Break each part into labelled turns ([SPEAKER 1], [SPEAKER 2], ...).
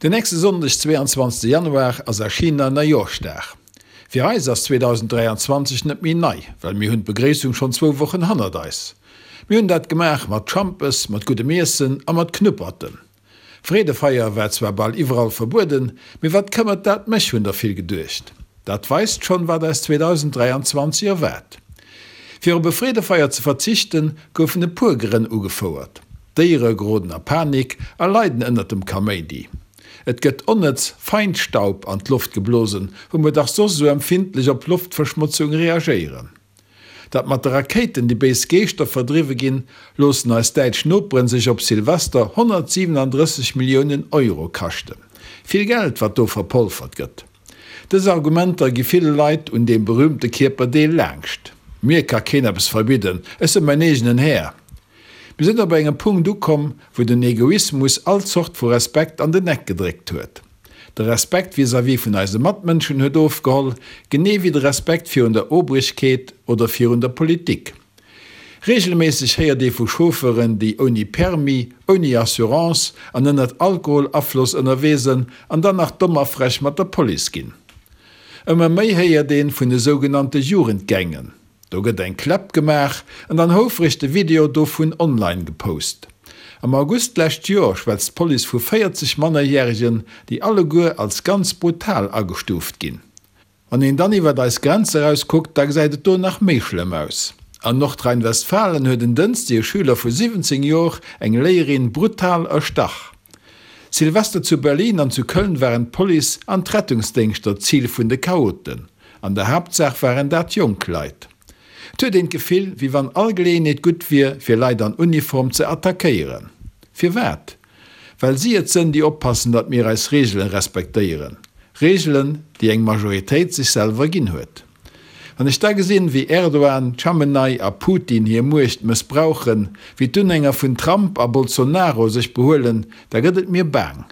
[SPEAKER 1] Den nächste Sonndeg, 22 Januar, ass a China Neijooschdag. Fir eis ass 2023 net méi nei, well mir hunn d'Begréissung schonn zwou Wochen hannert eis. Mir hunn dat gemaach mat Schampes, mat guddem Iessen a mat Knupperten. Freedefeier war zwar bal iwwerall verbueden, mee wat këmmert dat mech, hunn der vill geduecht. Dat weist schonn, wat eis 2023 erwaart. Fir op e Freedefeier ze verzichten, goufen e puer Grënn ugefouert, D'Déiere geroden a Panik a leiden ënnert dem Kaméidi. Et gëtt onnëtz Feinstaub an d'Loft geblosen, wou mer dach soss esou empfindlech op Loftverschmotzung reagéieren. Datt mat de Rakéiten déi béis Geeschter verdriwwe ginn, loossen eis däitsch Noperen sech op Silvester 137 Milliounen Euro kaschten. Vill Geld, wat do verpolfert gëtt. Dës Argumenter gi ville Leit un deem berühmte Kierperdeel laangscht. Mir ka keen eppes verbidden, ech sënn mäin eegenen Här. Mir sënn op engem Punkt ukomm, wou den Egoismus all Zort vu Respekt an den Eck gedréckt huet. De Respekt vis-à-vis vun eise Matmënschen huet ofgeholl, genee wéi de Respekt virun der Obrigkeet oder virun der Politik. Reegelméisseg héiert ee vu Chauffeuren, déi ouni Permis, ouni Assurance an ënnert Alkoholafloss ënnerwee sënn an dann nach domm a frech mat der Police ginn. Ëmmer méi héiert een vun de sougenannte Jugendgängen. Do gëtt eng Kläpp gemaach an dann houfreg de Video dovun online gepost. Am August d'lescht Joer schwätzt d'Police vu 40 Mannerjäregen, déi alleguer als ganz brutal agestuuft ginn. Wann een dann iwwert eis Grenz eraus kuckt, da gesäit et do nach méi schlëmm aus. An Nordrhein-Westfalen huet en Dënschdeg e Schüler vu 17 Jor eng Léierin brutal erstach. Silvester zu Berlin an zu Köln waren d'Police an d'Rettungsdéngschter d'Zil vun de Chaoten. An der Haaptsaach waren dat jonk Leit. Et huet een d'Gefill, wéi wann all Geleeënheet gutt wier, fir Leit an Uniform ze attackéieren. Firwat? Well si et sënn, déi oppassen, datt mir eis Reegelen respektéieren. Reegelen, déi eng Majoritéit sech selwer ginn huet. Wann ech da gesinn, wéi Erdogan, Chamenei a Putin hir Muecht mëssbrauchen, wéi d'Unhänger vun Trump a Bolsonaro sech behuelen, da gëtt et mir baang.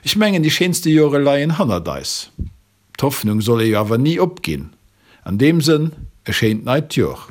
[SPEAKER 1] Ech mengen, déi schéinste Jore leien hannert eis. D'Hoffnung soll ee jo awer ni opginn. An deem Sënn, e schéint neit Jor.